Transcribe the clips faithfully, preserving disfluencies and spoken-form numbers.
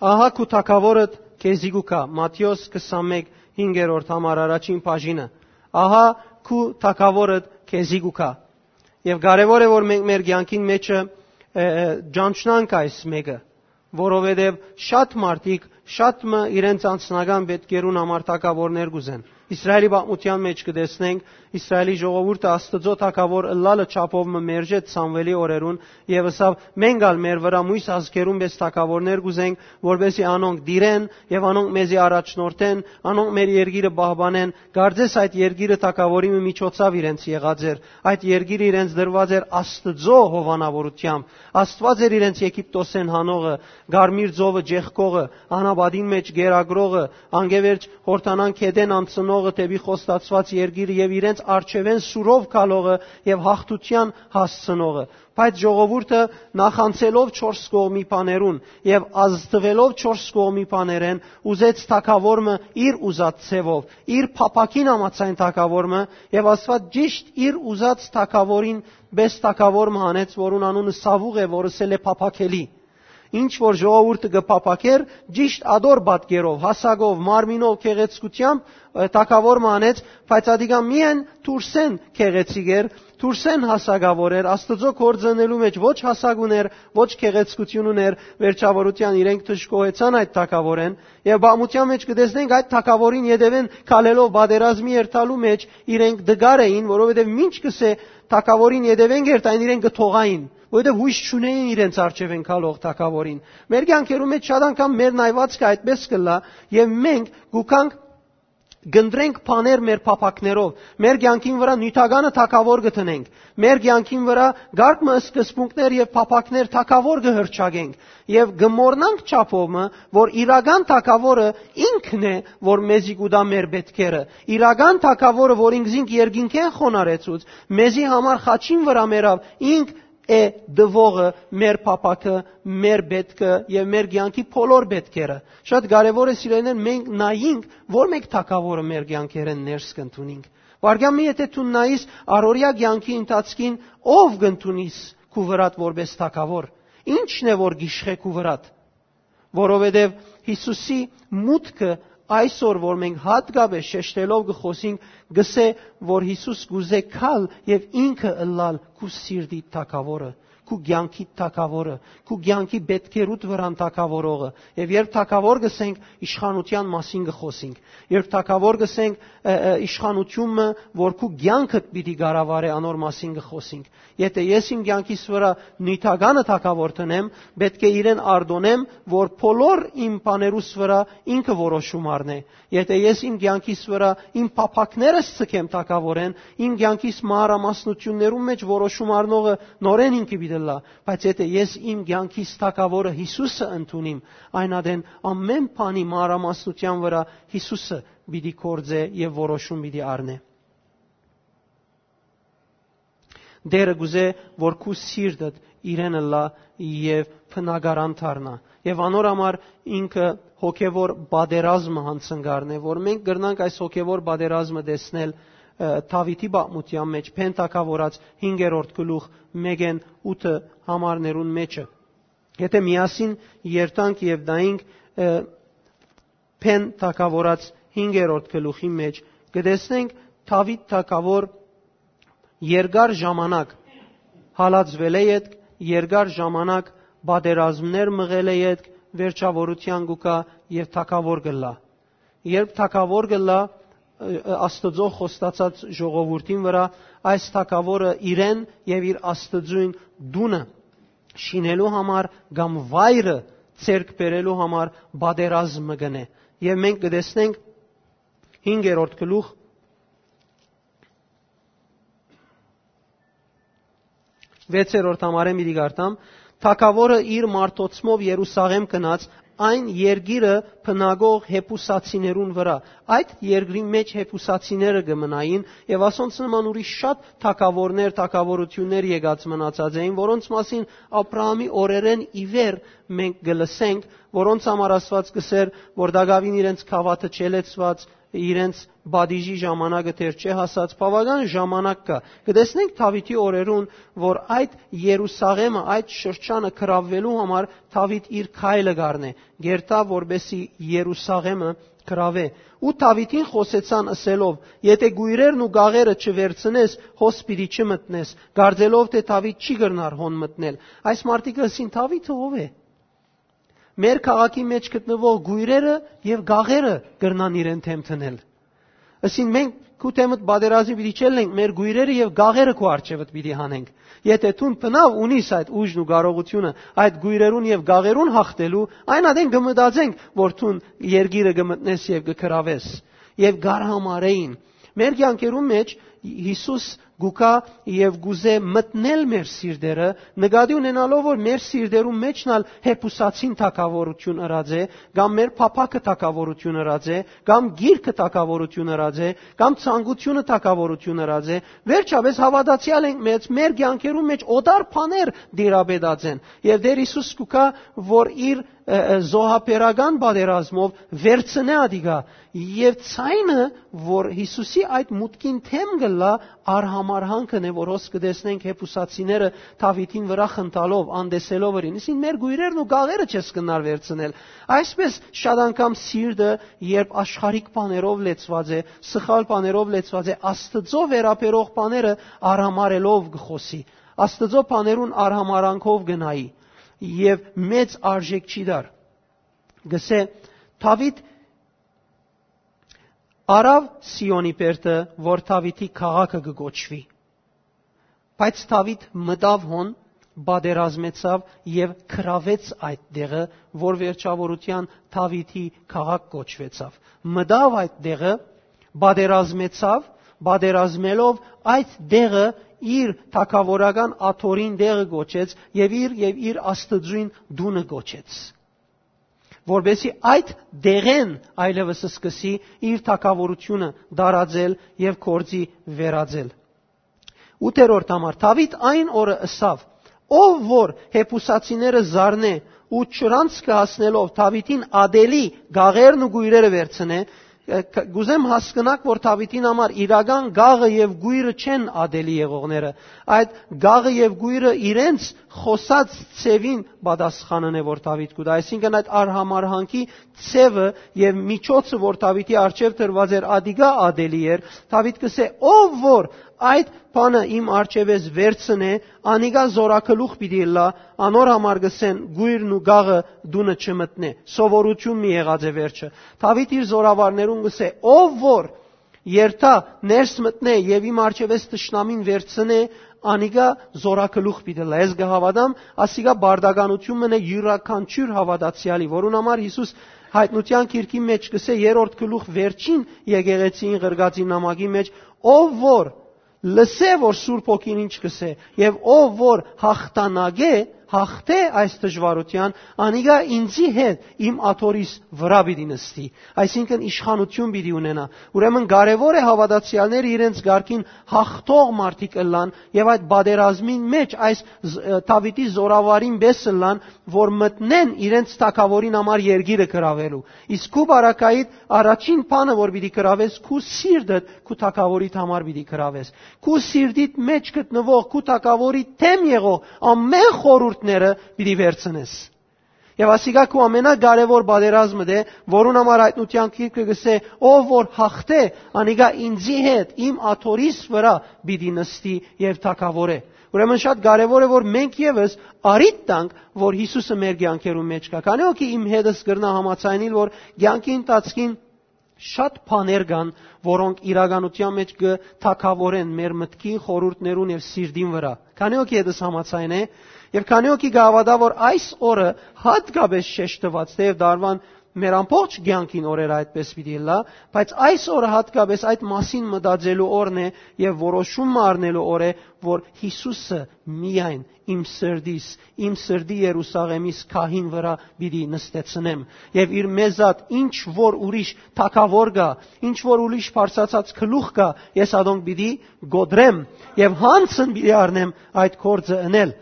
«Ահա քու թագաւորդ քեզի կու գայ»։ Մատթէոս քսանմէկ, հինգերորդ համար առաջին բաժինը։ «Ահա քու թագաւորդ քեզի կու գայ»։ Եւ կարեւոր է, որ մենք մեր կեանքին մէջը, ը, ը, ճանչնանք այս մէկը, որովհետեւ շատ մարդիկ շատ մը իրենց անձնական պէտքերուն համար թագաւորներ կ'ուզեն։ Իսրայէլի պատմութեան մէջ կը տեսնենք, Իսրայէլի ժողովուրդը Աստուծոյ թագաւոր ըլլալը չափով մը մերժեց Սամուէլի օրերուն եւ ըսաւ. «Մենք ալ մեր վրայ միւս ազգերուն պէս թագաւորներ կ'ուզենք, որպէսզի անոնք տիրեն եւ անոնք մեզի առաջնորդեն, անոնք մեր երկիրը պահպանեն»։ Կարծես այդ երկիրը թագաւորի մը միջոցաւ իրենց եղած էր։ Այդ երկիրը իրենց տրուած էր Աստուծոյ հովանաւորութեամբ։ Աստուած էր իրենց Եգիպտոսէն հանողը, Կարմիր ծովը ճեղքողը, անապատին մէջ կերակրողը, անկէ վերջ Յորդանան գետէն անցնողը դէպի խոստացուած երկիրը եւ իրենց առջեւէն սուրով գալողը եւ յաղթութեան հասցնողը։ Բայց ժողովուրդը, նախանցելով չորս կողմի բաներուն եւ ազդուելով չորս կողմի բաներէն, ուզեց թագաւոր մը իր ուզած ձեւով, իր փափաքին համաձայն թագաւոր մը, եւ Աստուած ճիշդ իր ուզած թագաւորին պէս թագաւոր մը հանեց, որուն անունը Սաւուղ է, որ ըսել է փափաքելի։ Ինչ որ ժողովուրդը կը փափաքէր, ճիշտ ատոր պատկերով, հասակով, մարմինով, գեղեցկութեամբ, ը, թագաւոր մը անեց, բայց ատիկա միայն դուրսէն գեղեցիկ էր, դուրսէն հասակաւոր էր, Աստուծոյ գործ ընելու մէջ ոչ հասակ ունէր, ոչ գեղեցկութիւն ունէր, վերջաւորութեան իրենք դժգոհեցան այդ թագաւորէն, եւ պատմութեան մէջ կը տեսնենք, այդ թագաւորին ետեւէն քալելով պատերազմի երթալու մէջ իրենք տկար էին, որովհետեւ մինչ կ'ըսէ թագաւորին ետեւէն կ'երթային, իրենք կը թողային, որովհետեւ յոյս չունէին իրենց առջեւէն քալող թագաւորին։ Մեր կեանքերու մէջ շատ անգամ մեր նայուածքը այդպէս կ'ըլլայ, եւ մենք կու գանք կ'ընտրենք բաներ մեր փափաքներով, մեր կեանքին վրայ նիւթականը թագաւոր կը դնենք, մեր կեանքին վրայ կարգ մը սկզբունքներ եւ փափաքներ թագաւոր կը հռչակենք եւ կը մոռնանք չափով մը, որ իրական թագաւորը ինքն է, որ մեզի կու տայ մեր պէտքերը։ Իրական թագաւորը, որ ինքզինք երկինքէն խոնարհեցուց, մեզի համար խաչին վրայ մեռաւ, ինք է տուողը մեր փափաքը, մեր պէտքը եւ մեր կեանքի բոլոր պէտքերը։ Շատ կարեւոր է, սիրելիներ, մենք նայենք, որ մէկ թագաւորը մեր կեանքերէն ներս կ'ընդունինք։ Վարգեան մի, եթե դու նայիս առօրեայ կեանքի ընթացքին, ով կ'ընդունիս քու վրադ որպէս թագաւոր, ի՞նչն է, որ գիշխէ քու վրադ, որովհետեւ Յիսուսի մուտքը այսօր, որ մենք յատկապէս շեշտելով կը խօսենք, կ'ըսէ, որ Յիսուս կ'ուզէ գալ եւ ինքը ըլլալ քու սիրտի թագաւորը, քու կեանքի թագաւորը, քու կեանքի պէտքերուդ վրան թագաւորողը։ Եւ երբ թագաւոր կ'ըսենք, իշխանութեան մասին կը խօսենք։ Երբ թագաւոր կ'ըսենք, ը, ը, իշխանութիւն մը, որ քու կեանքդ պիտի կառավարէ, անոր մասին կը խօսենք։ Եթե ես իմ կեանքիս վրայ նիւթականը թագաւոր դնեմ, պէտք է իրեն արտոնեմ, որ բոլոր իմ բաներուս վրայ ինքը որոշում առնէ։ Եթե ես իմ կեանքիս վրայ իմ փափաքներս ձգեմ թագաւորէն, իմ կեանքիս մանրամասնութիւններուն մէջ որոշում առնողը նորէն ինքը պիտի ըլլայ, բայց եթե ես իմ կեանքիս թագաւորը Յիսուսը ընդունիմ, այն ատեն ամէն բանի մանրամասնութեան վրայ Յիսուսը պիտի գործէ եւ որոշում պիտի առնէ։ Տէրը կ'ուզէ, որ քու սիրտդ իրեն ըլլայ եւ բնակարան դառնայ։ Եւ անոր համար ինքը հոգեւոր պատերազմը յանցնկալն է, որ մենք կրնանք այս հոգեւոր պատերազմը տեսնել, ը, Դաւիթի պատմութեան մէջ, Փեն թագաւորաց հինգերորդ գլուխ մէկէն ութը համարներուն մէջը։ Եթե միասին երթանք եւ նայենք, ը, Փեն թագաւորաց հինգերորդ գլուխի մէջ, կը տեսնենք Դաւիթ թագաւոր երկար ժամանակ հալածուելէ ետք, երկար ժամանակ պատերազմներ մղելէ ետք, վերջաւորութեան կու գայ եւ թագաւոր կ'ըլլայ։ Երբ թագաւոր կ'ըլլայ, ը, ը, Աստուծոյ խոստացած ժողովուրդին վրայ, այս թագաւորը իրեն եւ իր Աստուծոյն տունը շինելու համար կամ վայրը ձեռք բերելու համար պատերազմ մը կ'ընէ։ Եւ մենք կը տեսնենք հինգերորդ գլուխ, վեցերորդ համարէն պիտի կարդամ. «Թագաւորը իր մարդոցմով Երուսաղէմ գնաց, այն երկիրը բնակող Յեբուսացիներուն վրայ»։ Այդ երկրին մէջ Յեբուսացիները կը մնային, եւ ասոնց նման ուրիշ շատ թագաւորներ, թագաւորութիւններ եկած մնացած էին, որոնց մասին Աբրահամի օրերէն ի վեր մենք կը լսենք, որոնց համար Աստուած կ'ըսէր, որ տակաւին իրենց գաւաթը չէ լեցուած, իրենց պատիժի ժամանակը դեռ չէ հասած, բաւական ժամանակ կայ։ Կը տեսնենք Դաւիթի օրերուն, որ այդ Երուսաղէմը, այդ շրջանը գրաւելու համար Դաւիթ իր քայլը կ'առնէ, կ'երթայ, որպէսզի Երուսաղէմը գրաւէ։ Ու Դաւիթին խօսեցան ըսելով. «Եթէ կոյրերն ու գաղերը չվերցնես, հոս պիտի չմտնես», կարծելով թէ Դաւիթ չի կրնար հոն մտնել։ Այս մարդիկը ըսին. «Դաւիթը ո՞վ է։ Մեր քաղաքի մէջ գտնուող կոյրերը եւ գաղերը կրնան իրեն դէմ դնել»։ Ըսին. «Մենք քու դէմդ պատերազմի պիտի չելլենք, մեր կոյրերը եւ գաղերը քու առջեւդ պիտի հանենք։ Եթէ դուն բնաւ ունիս այդ ուժն ու կարողութիւնը այդ կոյրերուն եւ գաղերուն յաղթելու, այն ատեն կը մտածենք, որ դուն երկիրը կը մտնես եւ կը գրաւես»։ Եւ կ'արհամարհէին։ Մեր կեանքերուն մէջ Յիսուս կու գայ եւ կ'ուզէ մտնել մեր սիրտերը, նկատի ունենալով, որ մեր սիրտերուն մէջն ալ հեփուսացին թագաւորութիւն ըրած է, կամ մեր փափաքը թագաւորութիւն ըրած է, կամ գիրքը թագաւորութիւն ըրած է, կամ ցանկությունը թագաւորութիւն ըրած է։ Վերջապէս հաւատացեալ ենք մեծ, մեր կեանքերուն մէջ օտար բաներ դիրապետած են։ Եւ Տէր Յիսուս կու գայ, որ իր, ը, ը, զոհաբերական պատերազմով վերցնէ ադիկա։ Եւ ցայնը, որ Յիսուսի այդ մուտքին դէմ կ'ըլլայ, արհամարհանքն է, որ հոս կը տեսնենք հեփուսացիները Դաւիթին վրայ խնդալով, անտեսելով իրեն. «Ըսին, մեր կոյրերն ու գաղերը չես կրնար վերցնել»։ Այսպէս շատ անգամ սիրտը, երբ աշխարհիկ բաներով լեցուած է, սխալ բաներով լեցուած է, Աստուծոյ վերաբերող բաները արհամարհելով կը խօսի, Աստուծոյ բաներուն արհամարհանքով կը նայի եւ մեծ արժէք չի տար։ Կ'ըսէ. «Դաւիթ առաւ Սիոնի բերդը, որ Դաւիթի քաղաքը կը կոչուի»։ Բայց Դաւիթ մտաւ հոն, պատերազմեցաւ եւ գրաւեց այդ տեղը, որ վերջաւորութեան Դաւիթի քաղաք կոչուեցաւ։ Մտաւ այդ տեղը, պատերազմեցաւ, պատերազմելով այդ տեղը իր թագաւորական աթոռին տեղը կոչեց եւ իր, եւ իր Աստուծոյն տունը կոչեց, որպէսզի այդ տեղէն այլեւս սկսի իր թագաւորութիւնը տարածել եւ գործի վերածել։ Ութերորդ համար, Դաւիթ այն օրը ըսաւ. «Ով որ հեփուսացիները զարնէ ու չրանցքը հասնելով Դաւիթին ատելի գաղերն ու գոյրերը վերցնէ», ը, կ-, կ'ուզեմ հասկնաք, որ Դաւիթին համար իրական գաղը եւ գոյրը չեն ատելի եղողները։ Այդ գաղը եւ գոյրը իրենց խօսած ձեւին պատասխանն է, որ Դաւիթ կու տայ, այսինքն՝ այդ արհամարհանքի ձեւը եւ միջոցը, որ Դաւիթի առջեւ դրուած էր, ադիկա ատելի էր։ Դաւիթ կ'ըսէ. «Ով որ այդ բանը իմ առջեւէս վերցնէ, անիկա զորագլուխ պիտի ըլլայ, անոր համար կ'ըսեն՝ գոյրն ու գաղը տունը չմտնէ»։ Սովորութիւն մի եղած է վերջը։ Դաւիթ իր զորավարներուն կ'ըսէ. «Ով որ երթայ, ներս մտնէ եւ իմ առջեւէս թշնամին վերցնէ, անիկա զորագլուխ պիտի ըլլայ»։ Ես կը հաւատամ, ասիկա պարտականութիւն մըն է իւրաքանչիւր հաւատացեալի, որուն համար Յիսուս Յայտնութեան գիրքի մէջ կ'ըսէ, երրորդ գլուխ, վերջին եկեղեցիին ղրկածին նամակի մէջ. «Ով որ լսէ, որ Սուրբ Հոգին ինչ կ'ըսէ, եւ ով որ յաղթանակէ, յաղթէ այս դժուարութեան, անիկա ինծի հետ իմ աթոռիս վրայ պիտի նստի»։ Այսինքն՝ իշխանութիւն պիտի ունենայ։ Ուրեմն կարեւոր է հաւատացեալները իրենց կարգին յաղթող մարդիկ ըլլան եւ այդ պատերազմին մէջ այս զ-, Դաւիթի զորավարին պէս ըլլան, որ մտնեն իրենց թագաւորին համար երկիրը գրաւելու։ Իսկ քու պարագայիդ առաջին բանը, որ պիտի գրաւես, քու սիրտդ քու թագաւորիդ համար պիտի գրաւես։ Քու սիրտիդ մէջ գտնուող, քու թագաւորի դէմ եղող ամէն խորհուրդները պիտի վերցնես։ Եւ ասիկա քու ամենակարեւոր պատերազմդ է, որուն համար Յայտնութեան գիրքը կ'ըսէ. «Ով որ յաղթէ, անիկա ինծի հետ իմ աթոռիս վրայ պիտի նստի եւ թագաւորէ»։ Ուրեմն շատ կարեւոր է, որ մենք եւս առիթ տանք, որ Յիսուսը մեր կեանքերուն մէջ կայ։ Քանի՞ հոգի իմ հետս կրնայ համաձայնիլ, որ կեանքի ընթացքին շատ բաներ կան, որոնք իրականութեան մէջ կը թագաւորեն մեր մտքին, խորհուրդներուն եւ սիրտին վրայ։ Քանի՞ հոգի հետս համաձայն է, եւ քանի՞ հոգի կը հաւատայ, որ այս օրը յատկապէս շեշտուած, թէեւ տարուան մեր ամբողջ կեանքին օրերը այդպես պիտի ըլլայ, բայց այս օրը յատկապէս այդ մասին մտածելու օրն է եւ որոշում մը առնելու օր է, որ Յիսուսը միայն իմ սրտիս, իմ սրտի Երուսաղեմիս քահին վրայ պիտի նստեցնեմ, եւ իր մեզատ ինչ որ ուրիշ թագաւոր կայ, ինչ որ ուրիշ բարձրացած գլուխ կայ, ես ադոնք պիտի կոտրեմ, եւ յանցն պիտի առնեմ այդ գործը ընել։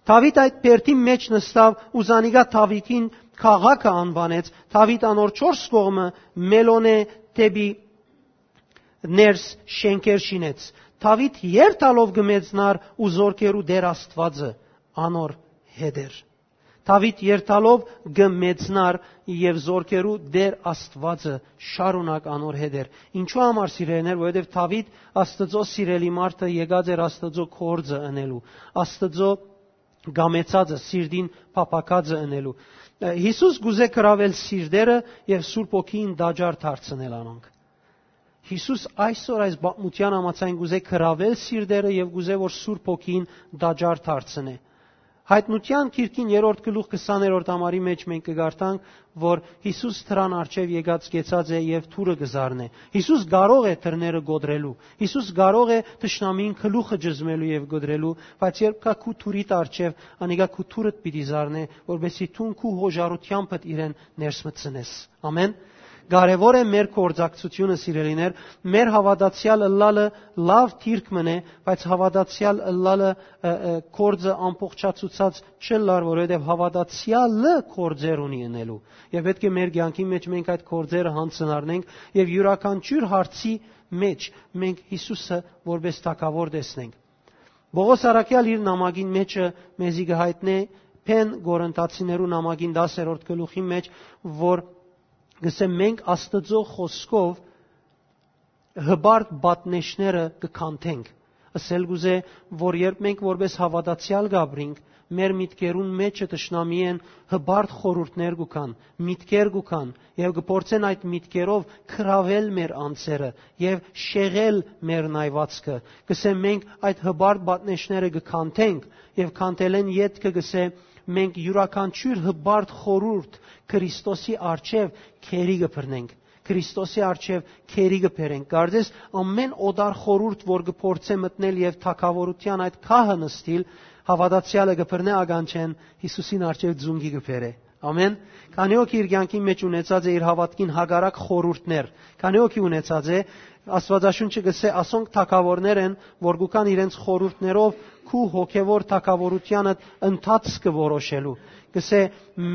Դաւիթ այդ բերդին մէջ նստաւ ու զանիկա Դաւիթին քաղաքը անուանեց։ Դաւիթ անոր չորս կողմը մելոնէ դէպի ներս շէնքեր շինեց։ Դաւիթ երթալով կը մեծնար ու զորքերու Տէր Աստուածը անոր հետ էր։ Դաւիթ երթալով կը մեծնար եւ զորքերու Տէր Աստուածը շարունակ անոր հետ էր։ Ինչու համար, սիրելիներ, որովհետեւ Դաւիթ Աստուծոյ սիրելի մարդը եկած էր Աստուծոյ կորձը ընելու, Աստուծոյ գամեցածը, սիրտին փափաքածը ընելու։ Յիսուս կուզէ կրավել սիրտերը եւ Սուրբ Հոգին տաճար դարձնել անոնք։ Յիսուս այսօր այս պատմութեան համաձայն կուզէ կրավել սիրտերը եւ կուզէ որ Սուրբ Հոգին տաճար դարձնէ։ Յայտնութեան գիրքին երրորդ գլուխ քսաներորդ համարի մէջ մենք կը կարդանք, որ Յիսուս դրան առջեւ եկած կեցած է եւ դուռը կը զարնէ։ Յիսուս կարող է դռները կոտրելու։ Յիսուս կարող է թշնամիին գլուխը ճզմելու եւ կոտրելու, բայց երբ կայ քու դուռիդ առջեւ, անիկա քու դուռդ պիտի զարնէ, որպեսզի դուն քու յոժարութեամբդ իրեն ներս մտցնես։ Ամեն։ Կարեւոր է մեր կորձակցությունը, սիրելիներ, մեր հաւատացեալ ըլլալը լաւ դիրք մըն է, բայց հաւատացեալ ըլլալը, ը, ը, կորձը ամբողջացուցած չըլլար, որովհետեւ հաւատացեալը կորձեր ունի ընելու։ Եւ պէտք է մեր կեանքի մէջ մենք այդ կորձերը յանձնառնենք եւ իւրաքանչիւր հարցի մէջ մենք Յիսուսը որպէս թագաւոր տեսնենք։ Պողոս առաքեալ իր նամակին մէջը մեզի կը յայտնէ Փեն Կորինթացիներու նամակին տասերորդ գլուխի մէջ, որ կսե մենք Աստուծոյ խօսքով հպարտ պատնեշները կը քանթենք։ Ասել կուզէ, որ երբ մենք որպէս հաւատացեալ կ'ապրինք, մեր միտքերուն մէջը թշնամիէն հպարտ խորհուրդներ կու գան, միտքեր կու գան, եւ կը փորձեն այդ միտքերով կրավել մեր անձերը եւ շեղել մեր նայվածքը։ Կսեմ, մենք այդ հպարտ պատնեշները կը քանթենք եւ քանթելէն ետքը կսե, մենք իւրաքանչիւր հպարտ խորհուրդ Քրիստոսի առջեւ քերի կը բռնենք, Քրիստոսի առջեւ քերի կը բերենք։ Կարծես ամեն օտար խորհուրդ, որ կը փորձէ մտնել եւ թագաւորութեան այդ քահը նստիլ, հաւատացեալը կը բռնէ ականջէն, Յիսուսին առջեւ ձունկի կը բերէ։ Ամեն։ Քանի՞ օք իր կեանքին մէջ ունեցած է իր հաւատքին հակառակ խորհուրդներ, քանի՞ օքի ունեցած է, Աստուածաշունչը կսե, ասոնք թագաւորներ են, որ կու գան իրենց խորհուրդներով քու հոգեվոր թագաւորութեանդ ընթացքը որոշելու։ Կսե,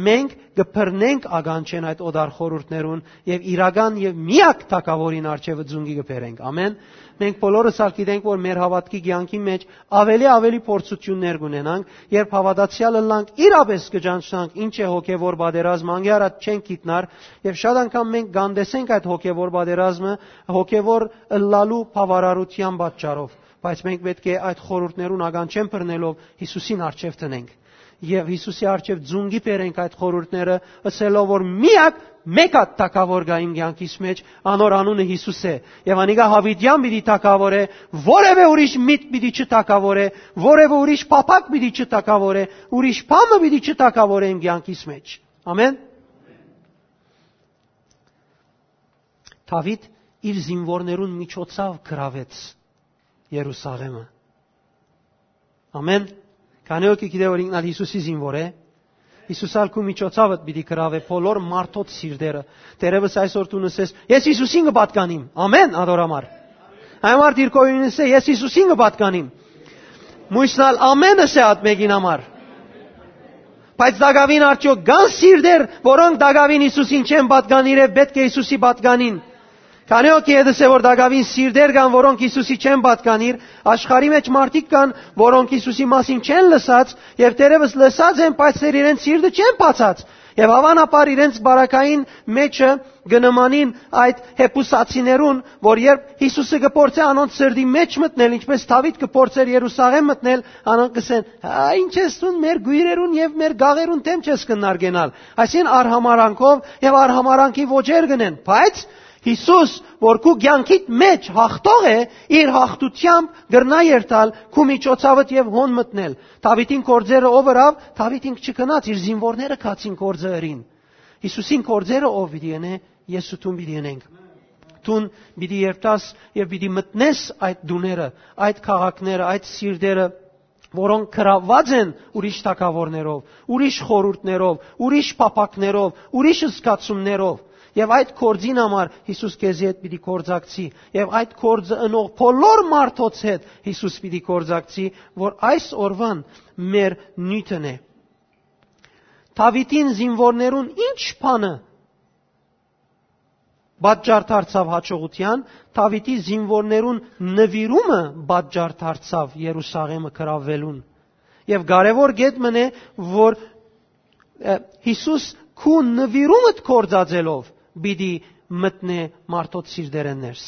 մենք կը բռնենք ականջէն այդ օտար խորհուրդներուն եւ իրական եւ միակ թագաւորին առջեւը ձունկի կը բերենք։ Ամեն։ Մենք բոլորս ալ գիտենք, որ մեր հաւատքի կեանքի մէջ ավելի, ավելի փորձութիւններ կունենանք, երբ հաւատացեալ ըլլանք, իրապէս կը ճանչնանք ինչ է հոգեվոր պատերազմը, անկէ առաջ չենք գիտնար, եւ շատ անգամ մենք կանտեսենք այդ հոգեվոր պատերազմը, հոգեվոր ըլլալու բաւարարութեան պատճառով, բայց մենք պէտք է այդ խորհուրդներուն ականջէն բռնելով Յիսուսին առջեւ դնենք։ Եւ Յիսուսի առջեւ ձունկի բերենք այդ խորհուրդները, ըսելով որ միակ մէկ հատ թագաւոր կայ իմ կեանքիս մէջ, անոր անունը Յիսուս է, եւ անիկա յաւիտեան պիտի թագաւոր է, որեւէ ուրիշ միտք պիտի չթագաւոր է, որեւէ ուրիշ փափակ պիտի չթագաւոր է, ուրիշ բան մը պիտի չթագաւոր է իմ կեանքիս մէջ։ Ամեն։ Դաւիթ իր զինվորներուն միջոցով կրաւեց Երուսաղէմը։ Ամեն։ Քանի՞ օքի գիտէ, որ ինքն ալ Յիսուսի զինվոր է, Յիսուս ալ քու միջոցավդ պիտի կրաւէ բոլոր մարդոց սիրտերը։ Դերևս այսօր դու նսես, «Ես Յիսուսին կը պատկանիմ»։ Ամեն, ադոր համար։ Այն մարդ իր կողմինս է, «Ես Յիսուսին կը պատկանիմ»։ Մույսն ալ ամենս է ատ մեկին համար։ Բայց տակաւին արդյոք կան սիրտեր, որոնք տակաւին Յիսուսին չեն պատկանիր եւ պէտք է Յիսուսի պատկանին։ Քանի՞ օքի հետս է, որ տակաւին սիրտեր կան, որոնք Յիսուսի չեն պատկանիր, աշխարհի մէջ մարդիկ կան, որոնք Յիսուսի մասին չեն լսած, եւ դերևս լսած են, բայց դեռ իրենց սիրտը չեն բացած, եւ հավանաբար իրենց բարակային մէջը կը նմանին այդ հեբուսացիներուն, որ երբ Յիսուսը կը փորձէ անոնց սրտի մէջ մտնել, ինչպես Դաւիթ կը փորձէր Երուսաղէմ մտնել, անոնք կ'ըսեն. «Հա, ինչ ես դուն մեր գոյրերուն եւ մեր գաղերուն դէմ չես կննարկենալ»։ Այսինքն, արհամարանքով եւ արհամարանքի ոճեր կ'ընեն, բայց Յիսուս, որ քու կեանքիդ մէջ յաղթող է, իր յաղթութեամբ կրնայ երթալ քու միջոցավդ եւ հոն մտնել։ Դաւիթին կորձերը ով ըրաւ, Դաւիթ ինք չկնաց, իր զինվորները գացին կորձը ըրին։ Յիսուսին կորձերը ով պիտի ընէ, ես ու դուն պիտի ընենք։ Դուն պիտի երթաս եւ պիտի մտնես այդ տուները, այդ քաղաքները, այդ սիրտերը, որոնք կրաւած են ուրիշ թագաւորներով, ուրիշ խորհուրդներով, ուրիշ փափակներով, ուրիշ զգացումներով։ Եւ այդ գործին համար Յիսուս քեզի հետ պիտի գործակցի, եւ այդ գործը ընող բոլոր մարդոց հետ Յիսուս պիտի գործակցի, որ այս օրուան մեր նիւթն է։ Դաւիթին զինուորներուն ի՞նչ բանը պատճառ դարձաւ հաջողութեան, Դաւիթի զինուորներուն նուիրումը պատճառ դարձաւ Երուսաղէմը գրաւելուն։ Եւ կարեւոր կետ մըն է, որ, ը, Յիսուս քու նուիրումդ գործածելով պիտի մտնէ մարդոց սիրտերէն ներս։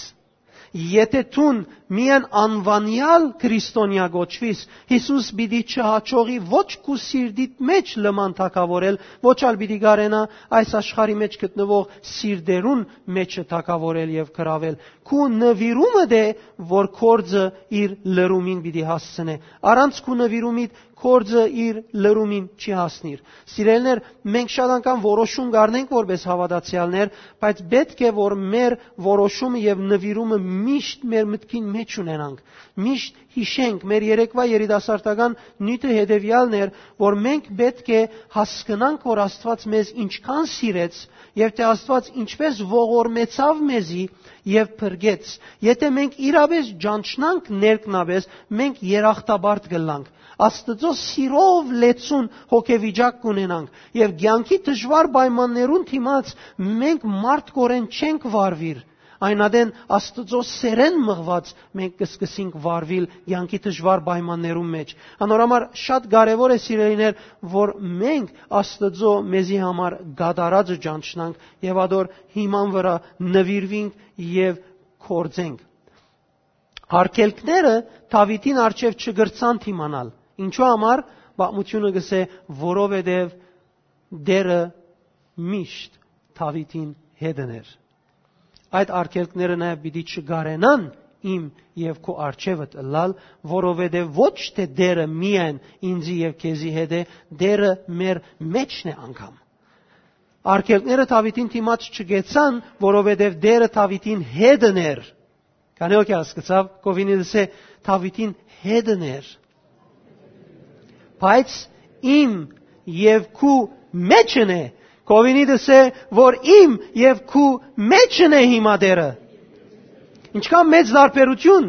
Եթէ դուն միայն անվանեալ քրիստոնեայ կոչուիս, Յիսուս պիտի չհաջողի ոչ քու սիրտիդ մէջ լման թագաւորել, ոչ ալ պիտի կարենայ այս աշխարհի մէջ գտնուող սիրտերուն մէջը թագաւորել եւ գրաւել։ Քու նուիրումդ է, որ գործը իր լրումին պիտի հասցնէ։ Առանց քու նուիրումիդ գործը իր լրումին չի հասնիր։ Սիրելիներ, մենք շատ անգամ որոշում կ'առնենք որպես հաւատացեալներ, բայց պէտք է, որ մեր որոշումը եւ նուիրումը միշտ մեր մտքին մէջ ունենանք, միշտ յիշենք։ Մեր երեկվայ երիտասարդական նիւթը հետեւեալն էր, որ մենք պէտք է հասկնանք, որ Աստուած մեզ ինչքան սիրեց եւ թէ Աստուած ինչպես ողորմեցաւ մեզի եւ փրկեց։ Եթէ մենք իրապէս ճանչնանք ներքնապէս, մենք երախտապարտ կ'ըլլանք։ Աստուծոյ սիրով լեցուն հոգեվիճակ կ'ունենանք եւ կեանքի դժուար պայմաններուն դիմաց մենք մարդկորեն չենք վարուիր։ Այն ատեն Աստուծոյ սերէն մղուած մենք կ'սկսենք վարուիլ կեանքի դժուար պայմաններուն մէջ։ Անոր համար շատ կարեւոր է, սիրելիներ, որ մենք Աստուծոյ մեզի համար կատարածը ճանչնանք եւ ադոր հիման վրայ նուիրուինք եւ գործենք։ Արգելքները Դաւիթին առջեւ չկրցան դիմանալ։ Ինչու համար, պատմութիւնը կ'ըսէ, որովհետեւ Տէրը միշտ Դաւիթին հետն էր։ Այդ արգելքները նաեւ պիտի չկարենան իմ եւ քու առջեւդ ըլլալ, որովհետեւ ոչ թէ Տէրը միայն ինծի եւ քեզի հետ է, Տէրը մեր մէջն է անգամ։ Արգելքները Դաւիթին դիմաց չկեցան, որովհետեւ Տէրը Դաւիթին հետն էր։ Քանի՞ հոգի հասկցաւ, կովինի դսե Դաւիթին հետն էր։ Բայց իմ եւ քու մէջն է, կովինի դսե, որ իմ եւ քու մէջն է հիմա Տէրը։ Ինչքան մեծ տարբերութիւն։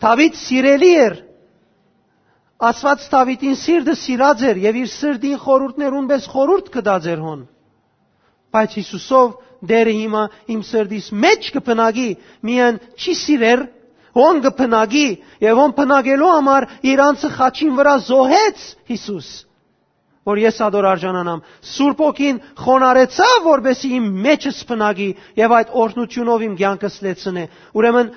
Դաւիթ սիրելի էր, Աստուած Դաւիթին սիրտը սիրած էր եւ իր սրտին խորհուրդներուն պէս խորհուրդ կտած էր հոն։ Բայց Յիսուսով Տէրը հիմա իմ սրտիս մէջ կը բնակի, միայն չի սիրեր, հոն կը բնակի, եւ հոն բնակելու համար իր անձը խաչին վրայ զոհեց Յիսուս, որ ես ադոր արժանանամ։ Սուրբ Հոգին խոնարհեցաւ, որպեսզի իմ մէջս բնակի եւ այդ օրհնութիւնով իմ կեանքս լեցնէ։ Ուրեմն,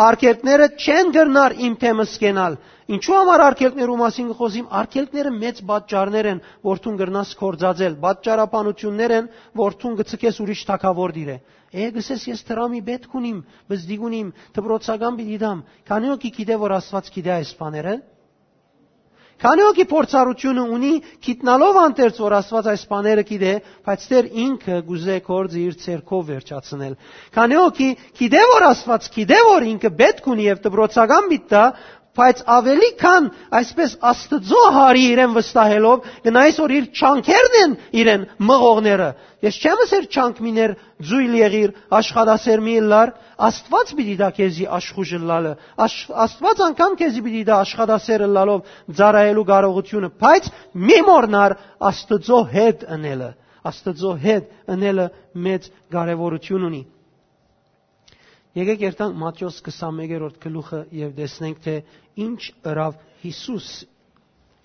արգելքները չեն կրնար իմ թեմս կենալ։ Ինչու համար արգելքներու մասին կը խոզիմ, արգելքները մեծ պատճառներ են, որ դուն կրնաս կործածել, պատճառաբանություններ են, որ դուն կցկես ուրիշ թագաւոր դիրե։ Է, կսես, ես դրամի պէտք ունիմ, բզդիկ ունիմ, դպրոցական պիտի դամ։ Քանի՞ հոգի գիտէ, որ Աստուած գիտէ այս բաները։ Քանի՞ հոգի փորձառությունը ունի, գիտնալով անդերձ, որ Աստուած այս բաները գիտէ, բայց Տէր ինքը կուզէ գործը իր ձեռքով վերջացնել։ Քանի՞ հոգի գիտէ, որ Աստուած գիտէ, որ ինքը պէտք ունի եւ դպրոցական պիտի տայ, բայց ավելի քան այսպես Աստուծոյ հարի իրեն վստահելով, կնայես, որ իր չանքերն են իրեն մղողները։ Ես չեմ ըսեր չանք միներ, ձոյլ եղիր, աշխատասեր մի ըլլար, Աստուած պիտի տայ քեզի աշխուժ ըլլալը, աշ-, Աստուած անգամ քեզի պիտի տայ աշխատասեր ըլլալով ծառայելու կարողությունը, բայց մի մոռնար Աստուծոյ հետ ընելը, Աստուծոյ հետ ընելը մեծ կարեւորութիւն ունի։ Եկեք երթանք Մատթէոս քսանմեկերորդ գլուխը եւ տեսնենք, թէ ինչ ըրաւ Յիսուս,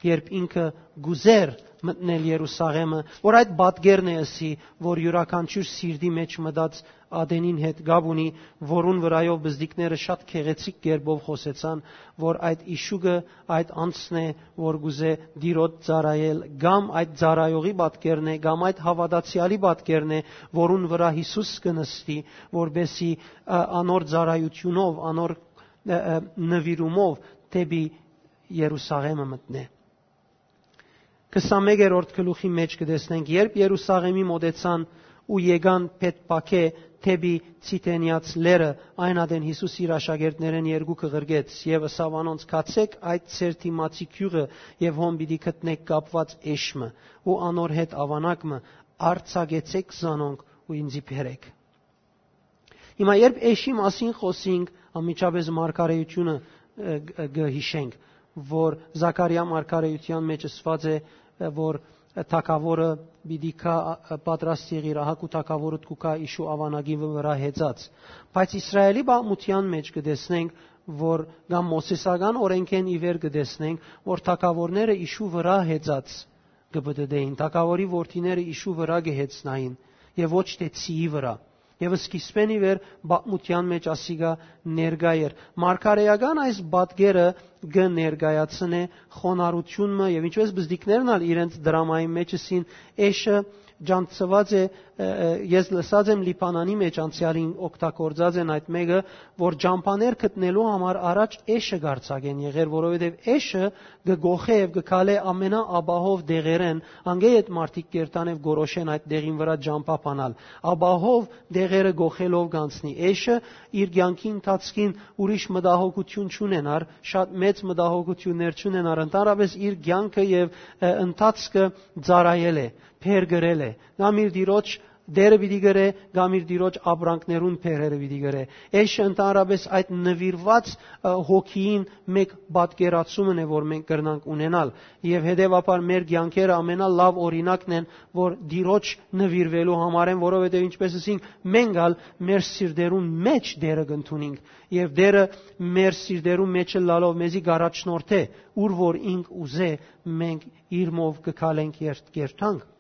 երբ ինքը կուզեր մտնել Երուսաղէմը, որ այդ պատկերն է ըսի, որ իւրաքանչիւր սիրտի մէջ մտած ատենին հետ կապ ունի, որուն վրայով բզդիկները շատ գեղեցիկ կերպով խօսեցան, որ այդ իշուկը այդ անձն է, որ կուզէ Տիրոջ ծառայել, կամ այդ ծառայողի պատկերն է, կամ այդ հաւատացեալի պատկերն է, որուն վրայ Յիսուս կը նստի, որպեսզի, ա, անոր ծառայութիւնով, անոր, ա, ա, նուիրումով դէպի Երուսաղէմը մտնէ։ Քսանմեկերորդ գլուխի մէջ կը տեսնենք, երբ Երուսաղէմի մօտեցան ու եկան Բեթփագէ դէպի Ցիթենեաց լեռը, այն ատեն Յիսուս իր աշակերտներէն երկուքը ղրկեց եւ ըսաւ անոնց. «Գացէք այդ ձեր դիմացի գիւղը եւ հոն պիտի գտնէք կապուած էշ մը ու անոր հետ աւանակ մը, արձակեցէք զանոնք ու ինձի բերեք։ Հիմա երբ էշի մասին խօսինք, անմիջապէս մարգարէութիւնը, ը, ը, կը յիշենք, որ Զաքարիա մարգարէութեան մեջ ըսուած է, ը, որ թագաւորը պիտի գայ, ը, պատրաստ եղիր, ահա քու թագաւորդ կու գայ իշու աւանակի վրայ հեծած։ Բայց Իսրայէլի պատմութեան մեջ կը տեսնենք, որ կամ Մովսէսական օրէնքէն ի վեր կը տեսնենք, որ թագաւորները իշու վրայ հեծած կը պտըտէին, թագաւորի որդիները իշու վրայ կը հեծնային եւ ոչ թէ ցիի վրայ։ Եւ սկիզբէն ի վեր պատմութեան մեջ ասիկա ներկայ էր։ Մարգարէական այս պատկերը կը ներկայացնէ խոնարհութիւն մը եւ ինչպէս բզդիկներն ալ իրենց դրամային մեջ ըսին, էշը ջանցուած է, ը, ը, ես լսած եմ Լիբանանի մեջ անցեալին օգտագործած են այդ մէկը, որ ճամբաներ գտնելու համար առաջ էշը կարձակեն եղեր, որովհետեւ էշը կը գոխէ եւ կը քալէ ամենաապահով դեղերէն, անգէ այդ մարդիկ կերտան եւ գորոշեն այդ դեղին վրայ ճամբայ բանալ։ Ապահով դեղերը գոխելով կանցնի։ Էշը իր կեանքի ընթացքին ուրիշ մտահոգութիւն չունենար, շատ մեծ մտահոգութիւններ չունենար, ընդհանրապես իր կեանքը եւ, ը, ընթացքը ծառայել է, բերկրել է, կամ իր տիրոջ դերը պիտի կրէ, կամ իր տիրոջ ապրանքներուն բերերը պիտի կրէ։ Էշը ընդհանրապես այդ նվիրված, ը, հոգիին մէկ պատկերացումն է, որ մենք կրնանք ունենալ։ Եւ հետեւաբար մեր կեանքերը ամենալաւ օրինակն են, որ տիրոջ նվիրվելու համարեն, որովհետեւ ինչպես ասինք, մենք ալ մեր սիրտերուն մեջ դերը կ'ընդունինք, եւ դերը մեր սիրտերուն մեջ ըլլալով մեզի կ'առաջնորդէ, ուր որ ինք ուզէ, մենք իրմով կը քալենք երթ-, երթանք։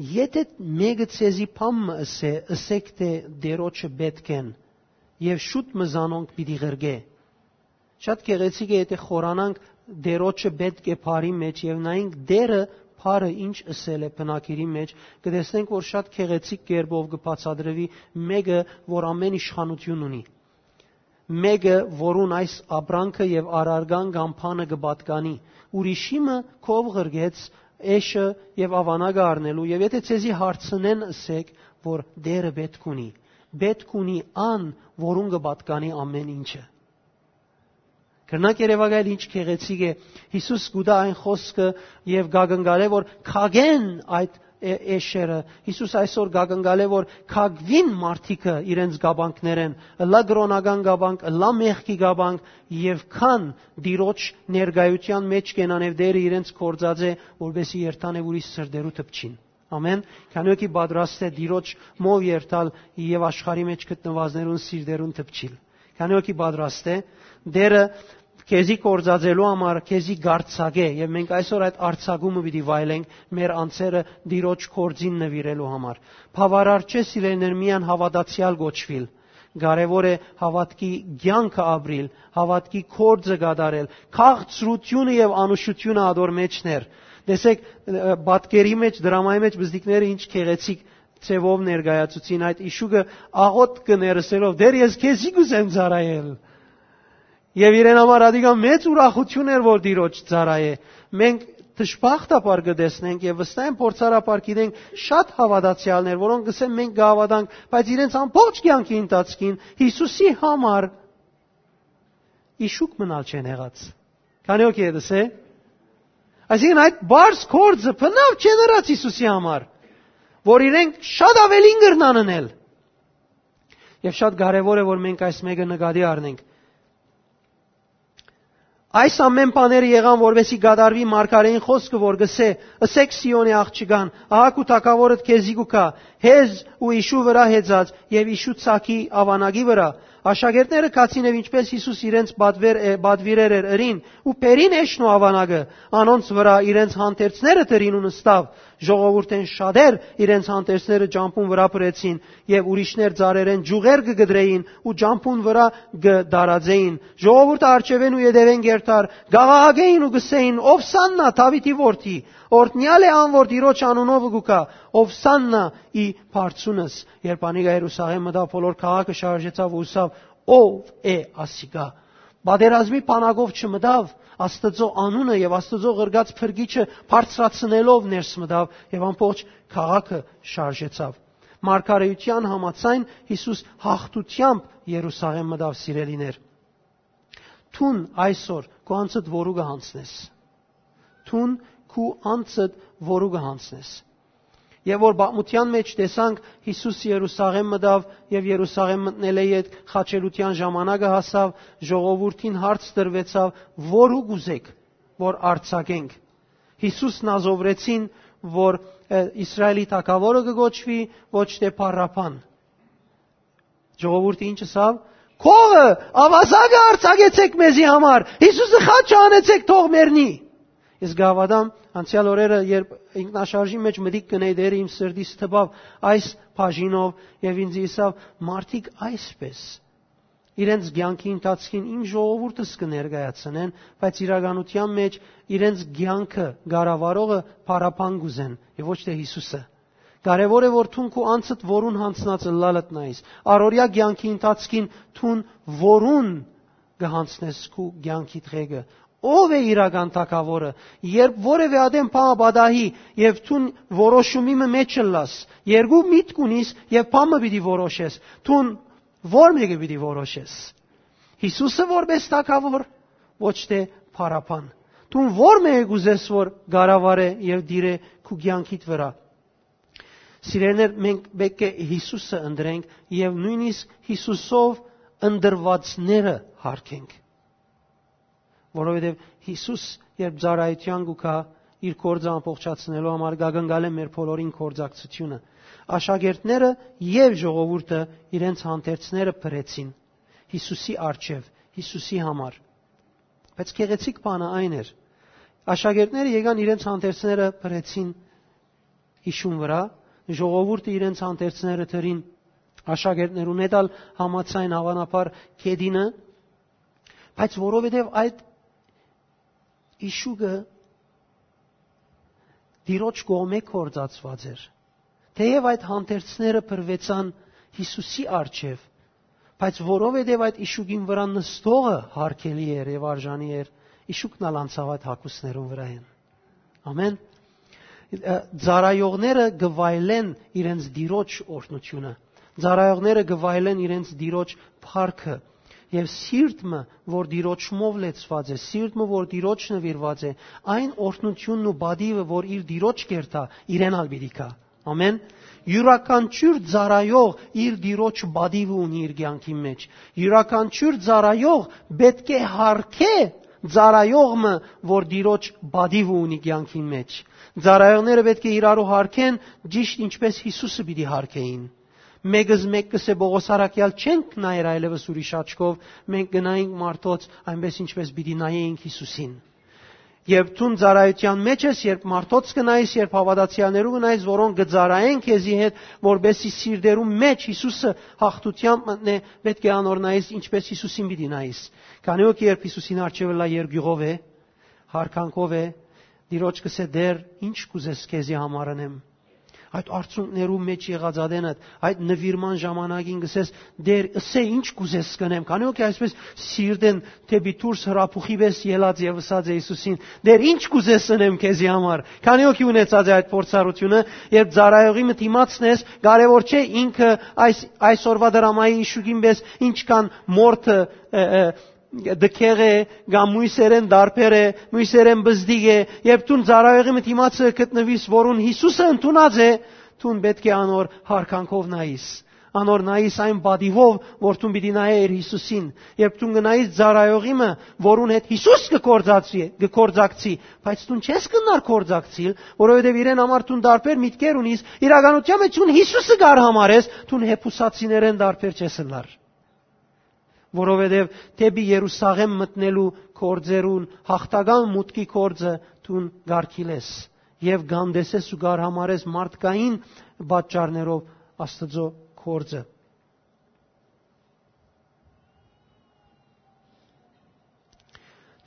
Եթէ մէկը ձեզի բան մը ըսէ, ըսէք թէ Տիրոջը պէտք են, եւ շուտ մը զանոնք պիտի ղրկէ։ Շատ գեղեցիկ է, եթէ խորանանք Տիրոջը պէտք է բառի մեջ եւ նայենք Տերը բառը ինչ ըսել է բնագիրի մեջ, կը տեսնենք, որ շատ գեղեցիկ կերպով կը բացատրուի մէկը, որ ամեն իշխանութիւն ունի, մէկը, որուն այս ապրանքը եւ առարկան կամ բանը կը պատկանի, ուրիշի մը քով ղրկեց էշը եւ աւանակը առնելու, եւ եթէ ձեզի հարցնեն, ըսէք, որ Տերը պէտք ունի, պէտք ունի ան, որուն կը պատկանի ամեն ինչը։ Կրնակ երեւակայել ինչ գեղեցիկ է, Յիսուս կու տայ այն խօսքը եւ կակնկալէ, որ քակեն այդ է-, էշերը։ Յիսուս այսօր կակնկալէ, որ քակուին մարդիկը իրենց կապանքներէն, ըլլայ կրօնական կապանք, ըլլայ մեղքի կապանք, եւ քան Տիրոջ ներկայութեան մեջ կենան եւ Տերը իրենց կործածէ, որպեսզի երթան եւ ուրիշ սրտերու դպչին։ Ամեն, քանի օքի պատրաստ է Տիրոջ մով երթալ եւ աշխարհի մեջ գտնուածներուն սիրտերուն դպչիլ։ Քանի օքի պատրաստ է, Տերը քեզի կործածելու համար քեզի կարձակէ, եւ մենք այսօր այդ արձակումը պիտի վայելենք մեր անձերը Տիրոջ կործին նվիրելու համար։ Բաւարար չէ, սիրելիներ, միայն հաւատացեալ կոչուիլ։ Կարեւոր է հաւատքի կեանքը ապրիլ, հաւատքի կործը կատարել, քաղցրությունը եւ անուշությունը ատոր մեջներ։ Տեսեք, ը, պատկերի մեջ, դրամայի մեջ բզդիկները ինչ գեղեցիկ ձևով ներկայացուցին այդ իշուկը, աղոտ կը ներսելով, «Տեր, ես քեզի կուզեմ ծառայել»։ Եւ իրեն համար ադիկա մեծ ուրախություն էր, որ Տիրոջ ծառայէ։ Մենք դժբախտաբար կը տեսնենք եւ վստահ եմ փորձառաբար գիտենք շատ հաւատացեալներ, որոնք կսեն մենք կհաւատանք, բայց իրենց ամբողջ կեանքի ընթացքին Յիսուսի համար իշուկ մնալ չեն եղած։ Քանի օքի է դսե։ Այսինքն այդ բարձ կործը բնավ չեն ըրած Յիսուսի համար, որ իրենք շատ ավելին կրնան ընել։ Եւ շատ կարեւոր է, որ մենք այս մեկը նկատի առնենք։ Այս ամեն բաները եղան, որպեսզի կատարուի մարգարէին խոսքը, որ կսէ. «Ըսեք Սիոնի աղջկան, ահա քու թագաւորդ քեզի կու գայ, հեզ ու իշու վրայ հեծած եւ իշու ցակի աւանակի վրայ»։ Աշակերտները գացին եւ ինչպես Յիսուս իրենց պատվեր է, պատվիրեր էր ըրին, ու բերին էշն ու աւանակը անոնց վրայ, իրենց հանդերձները դրին ու նստաւ։ Ժողովուրդէն շատեր իրենց հանդերձները ճամբուն վրայ բրեցին եւ ուրիշներ ծառերէն ջուղեր կը կտրեին ու ճամբուն վրայ կը տարածեին։ Ժողովուրդը արջեւէն ու ետեւէն կերթար, կաղաղակէին ու կսէին. «Ովսաննա, Դաւիթի որդի, օրհնեալ է ան, որ Տիրոջ անունով կու գայ, ովսաննա ի բարձունս»։ Երբ անիկա Երուսաղէմ մտաւ, բոլոր քաղաքը շարժեցաւ ու ըսաւ. «Ո՞վ է ասիկա»։ Պատերազմի բանակով չմտաւ, Աստուծոյ անունը եւ Աստուծոյ ղրկած փրկիչը բարձրացնելով ներս մտաւ եւ ամբողջ քաղաքը շարժեցաւ։ Մարգարէութեան համաձայն Յիսուս հաղթութեամբ Երուսաղէմ մտաւ, սիրելիներ։ Դուն այսօր քու անձդ որու կը յանցնես։ Դուն քու անձդ որու կը յանցնես։ Եւ որ պատմութեան մէջ տեսանք, Յիսուս Երուսաղէմ մտաւ եւ Երուսաղէմ մտնելէ յետ խաչելութեան ժամանակը հասաւ, ժողովուրդին հարց տրուեցաւ. «Որու կ'ուզէք, որ արձակենք»։ Յիսուս Նազովրեցին, որ, ը, Իսրայէլի թագաւորը կը կոչուի, ոչ թէ Փարապան։ Ժողովուրդը ինչ ըսաւ։ «Քովը, աւազակը արձակեցէք մեզի համար, Յիսուսը խաչը հանեցէք, թող մեռնի»։ Ես կհաւատամ, անցեալ օրերը, երբ ինքնաշարժի մէջ մտիկ կ'ընէի, Տէրը իմ սրտիս թպաւ այս բաժինով եւ ինձ ըսաւ. «Մարդիկ այսպէս իրենց կեանքի ընթացքին իմ ժողովուրդս կը ներկայացնեն, բայց իրականութեան մէջ իրենց կեանքը կառավարողը Փարապան կ'ուզեն եւ ոչ թէ Յիսուսը»։ Կարեւոր է, որ դուն քու անձդ որուն յանձնած ըլլալդ նայես։ Առօրեայ կեանքի ընթացքին դուն որուն կը յանձնես քու կեանքիդ ղեկը։ Ո՞վ է իրական թագաւորը։ Երբ որեւէ ատեն բան պատահի եւ դուն որոշումի մը մէջ ըլլաս, երկու միտք ունիս եւ բան մը պիտի որոշես, դուն ո՞ր մէկը պիտի որոշես։ Յիսուսը որպէս թագաւոր, ոչ թէ Փարապան։ Դուն ո՞ր մէկը կ'ուզես, որ կառավարէ եւ տիրէ քու կեանքիդ վրայ։ Սիրելիներ, մենք պէտք է Յիսուսը ընտրենք եւ նոյնիսկ Յիսուսով ընտրուածները յարգենք։ Որովհետեւ Յիսուս, երբ ծառայութեան կու գայ, իր գործը ամբողջացնելու համար, կ'ակնկալէ մեր բոլորին գործակցութիւնը։ Աշակերտները եւ ժողովուրդը իրենց հանդերձները բրեցին Յիսուսի առջեւ, Յիսուսի համար։ Բայց գեղեցիկ բանը այն էր. աշակերտները եկան իրենց հանդերձները բրեցին իշուն վրայ, ժողովուրդը իրենց հանդերձները դրին աշակերտներուն հետ ալ համաձայն, հաւանաբար, գետինը, բայց որովհետեւ այդ իշուկը Տիրոջ կողմէ գործածուած էր։ Թէեւ այդ հանդերձները բրուեցան Յիսուսի առջեւ, բայց որովհետեւ այդ իշուկին վրայ նստողը յարգելի էր եւ արժանի էր, իշուկն ալ անցաւ այդ հագուստներուն վրայէն։ Ամեն։ Ը, ծառայողները կը վայելեն իրենց Տիրոջ օրհնութիւնը։ Ծառայողները կը վայելեն իրենց Տիրոջ փառքը։ Եւ սիրտ մը, որ Տիրոջմով լեցուած է, սիրտ մը, որ Տիրոջ նուիրուած է, այն օրհնութիւնն ու պատիվը, որ իր Տիրոջ կ'երթայ, իրեն ալ պիտի գայ։ Ամեն։ Իւրաքանչիւր ծառայող իր Տիրոջ պատիվը ունի իր կեանքի մէջ։ Իւրաքանչիւր ծառայող պէտք է յարգէ ծառայող մը, որ Տիրոջ պատիվը ունի կեանքին մէջ։ Ծառայողները պէտք է իրարու յարգեն, ճիշդ ինչպէս Յիսուսը պիտի յարգէին։ Մէկը զմէկ կ'ըսէ Պողոս առաքեալ. «Չենք նայեր այլեւս ուրիշ աչքով, մենք կը նայենք մարդոց, այնպէս ինչպէս պիտի նայէինք Յիսուսին»։ Երբ դուն ծառայութեան մէջ ես, երբ մարդոց կը նայես, երբ հաւատացեալներու կը նայես, որոնք կը ծառայեն քեզի հետ, որպէսզի սիրտերու մէջ Յիսուսը յաղթութեամբ մտնէ, պէտք է անոր նայես, ինչպէս Յիսուսին պիտի նայես։ Քանի որ երբ Յիսուսին առջեւը լա երկիւղով է, յարգանքով է, Տիրոջ կ'ըսէ. «Տէր, ինչ կ'ուզես քեզի համար ընեմ»։ Այդ արցունքներու մէջ եղած ատենդ, այդ նուիրման ժամանակին կ'ըսես. «Տէր, ըսէ, ինչ կ'ուզես կ'ընեմ»։ Քանի որ այսպէս սիրտեն դէպի դուրս հրապուխի պէս ելած եւ ըսած է Յիսուսին. «Տէր, ինչ կ'ուզես ընեմ քեզի համար»։ Քանի որ ունեցած է այդ փորձառութիւնը, երբ ծառայողի մը դիմացն ես, կարեւոր չէ ինքը այս, այսօրվա դրամայի իշուկին պէս ինչքան մորթը, ը, ը, դքեղ է, կամ մոյսերեն դարբեր է, մոյսերեն բզդիկ է, երբ դուն ծառայողի մը դիմացը գտնուիս, որուն Յիսուսը ընդունած է, դուն պէտք է անոր յարգանքով նայիս, անոր նայիս այն պատիվով, որ դուն պիտի նայէ իր Յիսուսին, երբ դուն կը նայիս ծառայողի մը, որուն հետ Յիսուս կը գործածի, կը գործակցի, բայց դուն չես կնար գործակցիլ, որովհետեւ իրեն համար դուն դարբեր միտքեր ունիս, իրականության մեջ դուն Յիսուսը կար համարես, դուն հեփուսացիներեն դարբեր չես ըլլար։ Որովհետև դէպի Երուսաղէմ մտնելու գործերուն յաղթական մուտքի գործը դուն կարգիլ ես եւ կ'անտեսես ու կ'արհամարհես մարդկային պատճառներով Աստուծոյ գործը։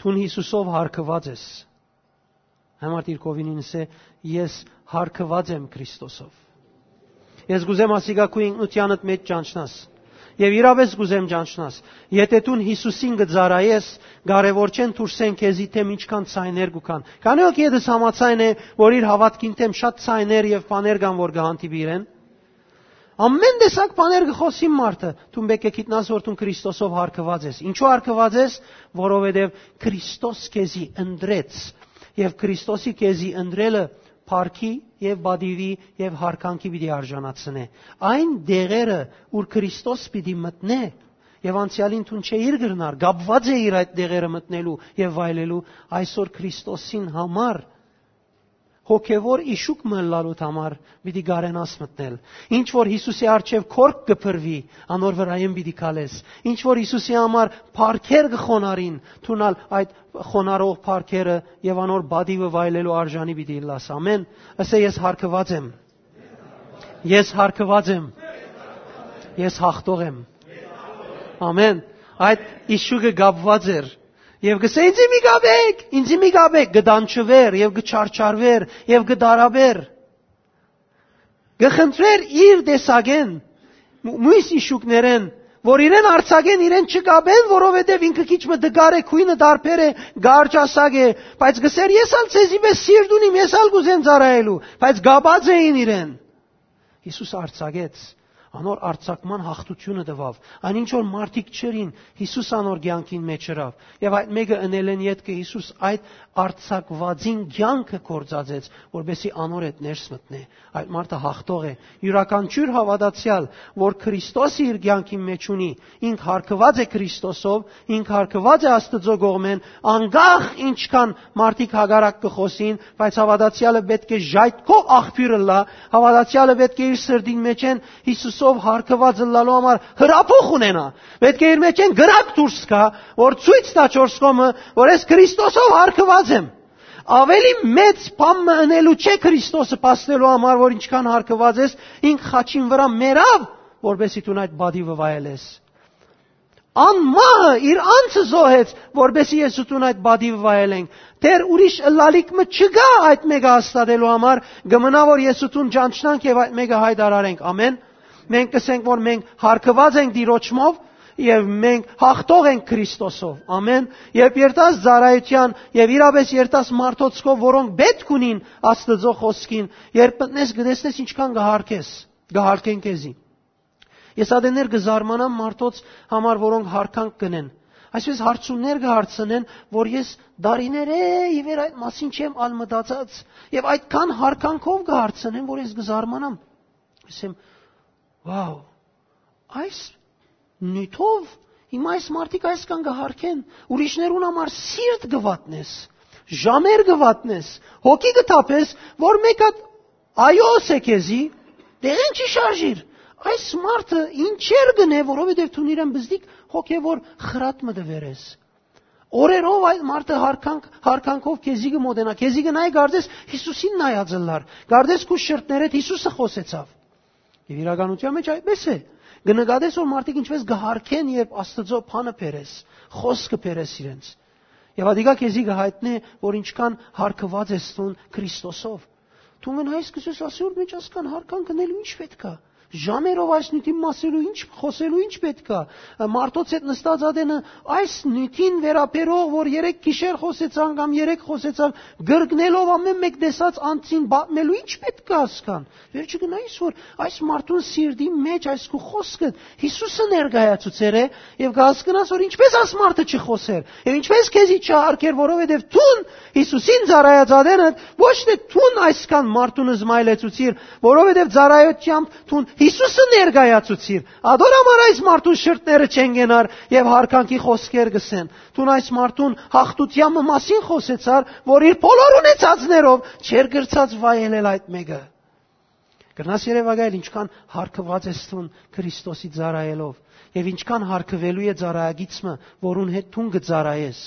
Դուն Յիսուսով յարգուած ես։ Համար դիրքովին ինձ է, ես յարգուած եմ Քրիստոսով։ Ես կ'ուզեմ ասիկա քու ինքնութեանդ մեջ ճանչնաս։ Եվ իրապէս կ'ուզեմ ճանչնաս։ Եթե դուն Յիսուսին կը ծառայես, կարևոր չեն դուրսեն քեզի դէմ ինչքան ցայներ կու կան։ Քանի՞ հոգի ետս համաձայն է, որ իր հաւատքին դէմ շատ ցայներ եւ բաներ կան, որ կը հանդիպի իրեն։ Ամեն տեսակ բաներ կը խօսին մարդը, դուն պէտք է գիտնաս, որ դուն Քրիստոսով յարգուած ես։ Ինչու յարգուած ես, որովհետև Քրիստոս քեզի ընտրեց, եւ Քրիստոսի քեզի ընտրելը փառքի եւ պատիւի եւ յարգանքի պիտի արժանացնէ։ Այն դեղերը, ուր Քրիստոս պիտի մտնէ, եւ անցեալին դուն չէիր կրնար, կապուած էիր այդ դեղերը մտնելու եւ վայելելու, այսօր Քրիստոսին համար, հոգեւոր իշուկ մը ըլլալուդ համար պիտի կարենաս մտնել։ Ինչ որ Յիսուսի առջեւ քորք կը փռուի, անոր վրայէն պիտի քալես։ Ինչ որ Յիսուսի համար փառքեր կը խոնարհին, դուն ալ այդ խոնարհող փառքերը եւ անոր պատիւը վայելելու արժանի պիտի ըլլաս։ Ամեն։ Ըսէ, ես յարգուած եմ։ Ես յարգուած եմ։ Ես յաղթող եմ։ Ամեն։ Այդ իշուկը կապուած էր։ Եւ կսէ, «Ինձի մի կապեք, ինձի մի կապեք», կը դանչուէր եւ կը չարչարուէր եւ կը տարապէր։ Կը խնդրէր իր տեսակէն, մու-, մոյս իշուկներէն, որ իրեն արձակեն, իրեն չկապեն, որովհետեւ ինքը քիչ մը տկար է, քոյնը տարբեր է, կարճասակ է, բայց կսէր, «Ես ալ ձեզի պէս սիրտ ունիմ, ես ալ կ'ուզեմ ծառայելու», բայց կապած էին իրեն։ Յիսուս արձակեց, անոր արձակման յաղթութիւնը տուաւ։ Այն ինչ որ մարդիկ չըրին, Յիսուս անոր կեանքին մէջ ըրաւ։ Եւ այդ մէկը ընելէն ետքը Յիսուս այդ արձակուածին կեանքը գործածեց, որպեսզի անոր հետ ներս մտնէ։ Այդ մարդը յաղթող է։ Իւրաքանչիւր հաւատացեալ, որ Քրիստոսը իր կեանքին մէջ ունի, ինք յարգուած է Քրիստոսով, ինք յարգուած է Աստուծոյ կողմէն, անկախ ինչքան մարդիկ հակառակ կը խօսին, բայց հաւատացեալը պէտք է ժայթքով աղբիւր ըլլայ, հաւատացեալը պէտք է իր սրտին մէջէն Յիսուսով յարգուած ըլլալու համար հրապուխ ունենայ, պէտք է իր մէջէն կրակ դուրս գայ, որ ցոյց տայ չորս կողմը, որ ես Քրիստոսով յարգուած եմ։ Ավելի մեծ բան մը ընելու չէ Քրիստոսը փաստելու համար, որ ինչքան յարգուած ես, ինք խաչին վրայ մեռաւ, որպեսզի դուն այդ պատիւը վայելես։ Անմահը իր անձը զոհեց, որպեսզի ես ու դուն այդ պատիվը վայելենք։ Դեռ ուրիշ ըլլալիք մը չկայ այդ մէկը հաստատելու համար, կը մնայ որ ես ու դուն ճանչնանք եւ այդ մէկը յայտարարենք։ Ամեն։ Մենք կ'ըսենք որ մենք յարգուած ենք Տիրոջմով եւ մենք յաղթող ենք Քրիստոսով։ Ամեն։ Երբ երթաս ծառայութեան եւ իրապէս երթաս մարդոց քով, որոնք պէտք ունին Աստուծոյ խօսքին, երբ մտնես, կը տեսնես ինչքան կը յարգես, կը յարգեն քեզի։ Ես ատեններ կը զարմանամ մարդոց համար, որոնք յարգանք կ'ընեն։ Այսպես հարցումներ կը հարցնեն, որ ես դարիներ է ի վեր այդ մասին չեմ ալ մտածած, եւ այդքան յարգանքով կը հարցնեն, որ ես կը զարմանամ։ Ասեմ, «Վաու, այս նիւթով հիմա այս մարդիկ այսքան կը յարգեն, ուրիշներուն համար սիրտ կը վատնես, ժամեր կը վատնես, հոգի կը թափես, որ մէկ հատ այո ըսէ քեզի, դեղեն չի շարժիր։ Այս մարդը ինչեր կ'ընէ, որովհետեւ դուն իրեն բզդիկ հոգեւոր խրատ մը տուեր ես»։ Օրերով այդ մարդը յարգանք-, յարգանքով քեզի կը մոտենայ, քեզի կը նայ, կարծես Յիսուսին նայած ըլլար, կարծես քու շրթներէդ Յիսուսը խօսեցաւ։ Եւ իրականության մէջ այդպես է։ Կը նկատես, որ մարդիկ ինչպես կը յարգեն, երբ Աստուծոյ բանը բերես, խօսքը բերես իրենց։ Եւ ատիկա քեզի կը յայտնէ, որ ինչքան յարգուած ես դուն Քրիստոսով։ Դու մնայես, կ'ըսես, «Ասի, որ մէջ ասկան յարգանք ընելու ինչ պէտք է։ Ժամերով այս նիւթին մասելու ինչ, խօսելու ինչ պէտք է։ Մարդոց հետ նստած ատենը այս նիւթին վերաբերող, որ երեկ գիշեր խօսեցան կամ երեկ խօսեցան, գրկնելով ամեն մէկ տեսած անձին պատմելու ինչ պէտք է ասկան»։ Վերջը գնայիս, որ այս մարդուն սիրտի մէջ այս քու խօսքը Յիսուսը ներկայացուցեր է, եւ կհասկնաս, որ ինչպես այս մարդը չխօսեր, եւ ինչպես քեզի չհարգեր, որովհետեւ դուն Յիսուսին ծառայած ատենը ոչ թե դուն այսքան մարդուն զմայլեցուցիր, որովհետեւ ծառայությամբ դուն Յիսուսը ներկայացուցիր, ադոր համար այս մարդուն շրթները չեն կենար եւ յարգանքի խօսքեր կ'ըսեն։ Դուն այս մարդուն յաղթութեան մը մասին խօսեցար, որ իր բոլոր ունեցածներով չէր կրցած վայելել այդ մէկը։ Կրնաս երեւակայել ինչքան յարգուած ես դուն Քրիստոսի ծառայելով, եւ ինչքան յարգուելու է ծառայագիծ մը, որուն հետ դուն կը ծառայես։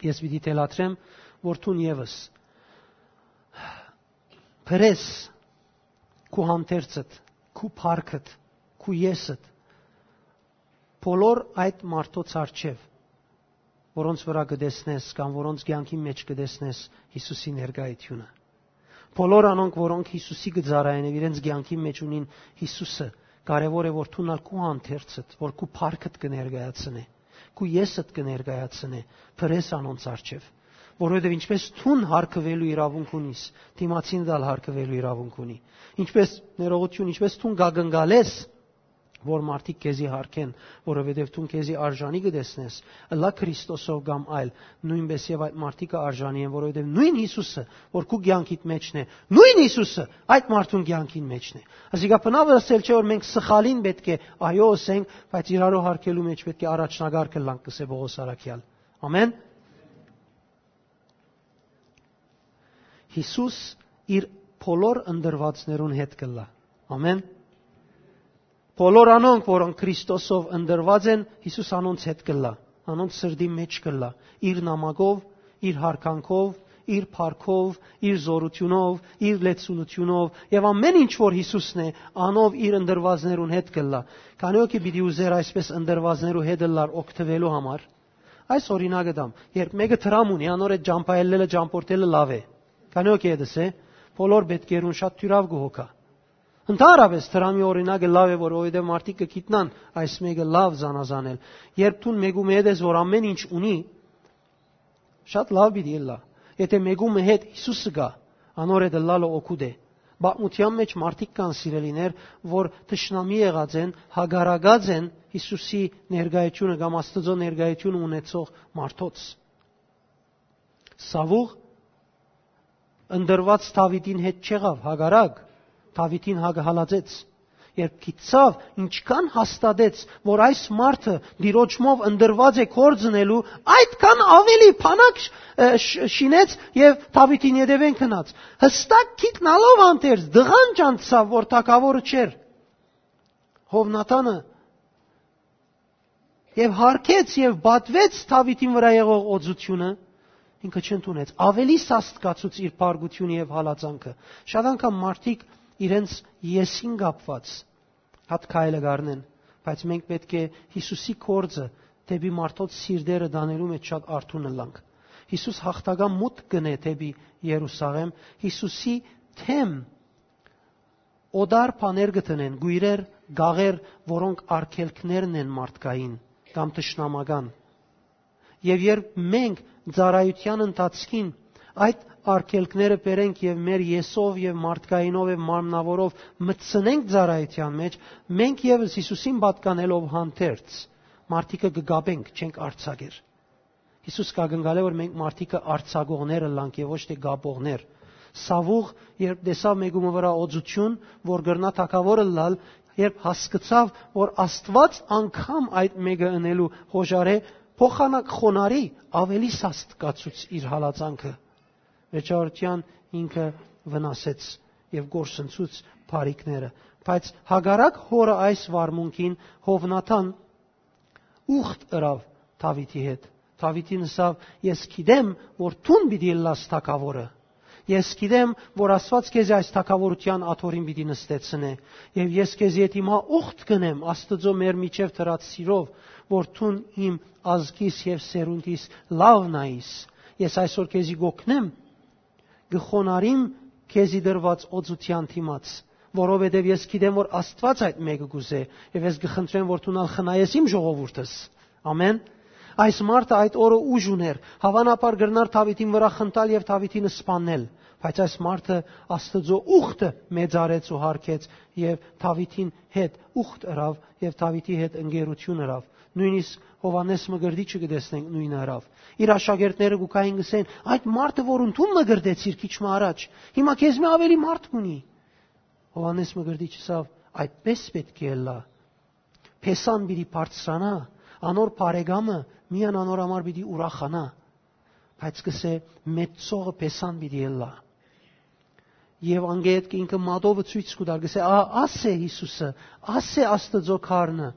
Ես պիտի թելադրեմ, որ դուն եւս փրես քու հանդերձդ, քու փառքդ, քու եսդ, բոլոր այդ մարդոց առջեւ, որոնց վրա կը տեսնես կամ որոնց կեանքին մէջ կը տեսնես Յիսուսի ներկայությունը։ Բոլոր անոնք, որոնք Յիսուսի կը ծառայեն եւ իրենց կեանքին մէջ ունին Յիսուսը, կարեւոր է, որ դուն ալ քու հանդերձդ, որ քու փառքդ կը ներկայացնէ, քու եսդ կը ներկայացնէ, փրես անոնց առջեւ, որովհետեւ ինչպես դուն յարգուելու իրավունք ունիս, դիմացինդ ալ յարգուելու իրավունք ունի։ Ինչպես, ներողություն, ինչպես դուն կակնկալես, որ մարդիկ քեզի յարգեն, որովհետեւ դուն քեզի արժանի կը տեսնես, ըլլայ Քրիստոսով կամ այլ, նոյնպէս եւ այդ մարդիկը արժանի են, որովհետեւ նոյն Յիսուսը, որ քու կեանքիդ մէջն է, նոյն Յիսուսը այդ մարդուն կեանքին մէջն է։ Ասիկա բնաւ ըսել չէ, որ մենք սխալին պէտք է այո ըսենք, բայց իրարու յարգելու մէջ պէտք է առաջնակարգ ըլլանք, կ'ըսէ Պողոս առաքեալ։ Ամեն։ Յիսուս իր բոլոր ընտրուածներուն հետ կ'ըլլայ։ Ամեն։ Բոլոր անոնք, որոնք Քրիստոսով ընտրուած են, Յիսուս անոնց հետ կ'ըլլայ, անոնց սրտին մէջ կ'ըլլայ, իր նամակով, իր յարգանքով, իր փառքով, իր զօրութիւնով, իր լեցունութիւնով եւ ամէն ինչ որ Յիսուսն է, անով իր ընտրուածներուն հետ կ'ըլլայ։ Քանի՞ օքի պիտի ուզեր այսպէս ընտրուածներու հետ ըլլար օգտուելու համար։ Այս օրինակը տամ, երբ մէկը դրամ ունի, անոր այդ ճամբայելլելը, ճամբորդելը լաւ է։ Քանի՞ օքի հետս է, բոլոր պէտքերուն շատ թիւրաւ կը հոգայ։ Ընդհանրապէս դրամի օրինակը լաւ է, որ որովհետեւ մարդիկ կը գիտնան այս մէկը լաւ զանազանել։ Երբ դուն մէկու մը հետ ես, որ ամէն ինչ ունի, շատ լաւ պիտի ըլլայ։ Եթէ մէկու մը հետ Յիսուսը գայ, անոր հետ ըլլալը օգուտ է։ Պատմութեան մէջ մարդիկ կան, սիրելիներ, որ թշնամի եղած են, հակառակած են Յիսուսի ներկայությունը կամ Աստուծոյ ներկայությունը ունեցող մարդոց։ Սաւուղ ընտրուած Դաւիթին հետ չեղաւ, հակառակ, Դաւիթին հակ հալածեց։ Երբ գիտցաւ, ինչքան հաստատեց, որ այս մարդը Տիրոջմով ընտրուած է կորձ ընելու, այդքան ավելի փանակ շ-, ը, շ-, շինեց եւ Դաւիթին ետեւէն գնաց։ Յստակ գիտնալով հանդերձ, դղան ճանչցաւ, որ թագաւորը չէր։ Հովնատանը եւ յարգեց եւ պատուեց Դաւիթին վրայ եղող օծութիւնը, ինքը չընդունեց։ Ավելի սաստկացուց իր փառքութիւնը եւ հալածանքը։ Շատ անգամ մարդիկ իրենց եսին կապուած հատ քայլը կ'առնեն, բայց մենք պէտք է Յիսուսի կորձը դէպի մարդոց սիրտերը տանելու մէջ շատ արթուն ըլլանք։ Յիսուս յաղթական մուտք կ'ընէ դէպի Երուսաղէմ, Յիսուսի թեմ օտար բաներ կը դնեն, կոյրեր, գաղեր, որոնք արգելքներն են մարդկային կամ թշնամական։ Եւ երբ մենք ծառայութեան ընթացքին այդ արգելքները բերենք եւ մեր եսով եւ մարդկայինով եւ մարմնաւորով մտցնենք ծառայութեան մէջ, մենք եւս Յիսուսին պատկանելով հանդերձ մարդիկը կը կապենք, չենք արձակեր։ Յիսուս կ'ակնկալէ, որ մենք մարդիկը արձակողներ ըլլանք եւ ոչ թէ կապողներ։ Սաւուղ, երբ տեսաւ մէկու մը վրայ օծութիւն, որ կրնայ թագաւոր ըլլալ, երբ հասկցաւ, որ Աստուած անգամ այդ մէկը ընելու հոժարէ, փոխանակ խոնարհի, ավելի սաստկացուց իր հալածանքը։ Վերջավորութեան ինքը վնասեց եւ կորսնցուց բարիքները։ Բայց հակառակ հօրը այս վարմունքին, Հովնատան ուխտ ըրաւ Դաւիթի հետ։ Դաւիթին ըսաւ. «Ես գիտեմ, որ դուն պիտի ըլլաս թագաւորը։ Ես գիտեմ, որ Աստուած քեզի այս թագաւորութեան աթոռին պիտի նստեցնէ։ Եւ ես քեզի հետ հիմա ուխտ կ'ընեմ Աստուծոյ մեր միջեւ դրած սիրով, որ դուն իմ ազգիս եւ սերունդիս լաւն այիս։ Ես այսօր քեզի կ'օգնեմ, կը խոնարհիմ քեզի տրուած օծութեան դիմաց, որովհետեւ ես գիտեմ, որ Աստուած այդ մէկը կ'ուզէ, եւ ես կը խնդրեմ, որ դուն ալ խնայես իմ ժողովուրդս»։ Ամեն։ Այս մարդը այդ օրը ուժ ունէր, հաւանաբար կրնար Դաւիթին վրայ խնդալ եւ Դաւիթին սպաննել, բայց այս մարդը Աստուծոյ ուխտը մեծարեց ու յարգեց եւ Դաւիթին հետ ուխտ ըրաւ եւ Դաւիթի հետ ընկերություն ըրաւ։ Նոյնիսկ Յովհաննէս Մկրտիչը կը տեսնենք նոյնը ըրաւ։ Իր աշակերտները կու գային, կ'ըսեն. «Այդ մարդը, որուն դուն մկրտեցիր քիչ մը առաջ, հիմա քեզմէ աւելի մարդ կ'ունի»։ Յովհաննէս Մկրտիչը ըսաւ. «Այդպէս պէտք է ըլլայ։ Փեսան պիտի բարձրանայ, անոր բարեկամը միայն անոր համար պիտի ուրախանայ»։ Բայց կ'ըսէ. «Մեծցողը փեսան պիտի ըլլայ»։ Եւ անգէտ ինքը մատովը ցոյց կու տար, կ'ըսէ. «Ա, աս է Յիսուսը, աս է Աստուծոյ Գառնը,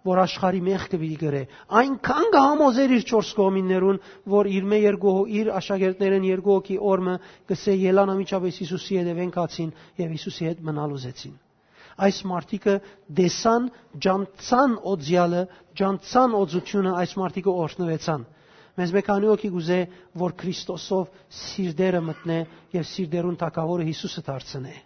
որ աշխարհի մեղքը պիտի կրէ»։ Այնքան կը համոզէր իր չորս կողմիններուն, որ իր մէ երկու հո-, իր աշակերտներէն երկու հոգի օրը կ'ըսէ. «Ելան անմիջապէս Յիսուսի ետեւէն գացին եւ Յիսուսի հետ մնալ ուզեցին»։ Այս մարդիկը տեսան, ջանցան օծեալը, ջանցան օծութիւնը, այս մարդիկը օրհնուեցան։ Մեզմէ քանի՞ օքի կ'ուզէ, որ Քրիստոսով սիրտերը մտնէ եւ սիրտերուն թագաւորը Յիսուսը դարձնէ։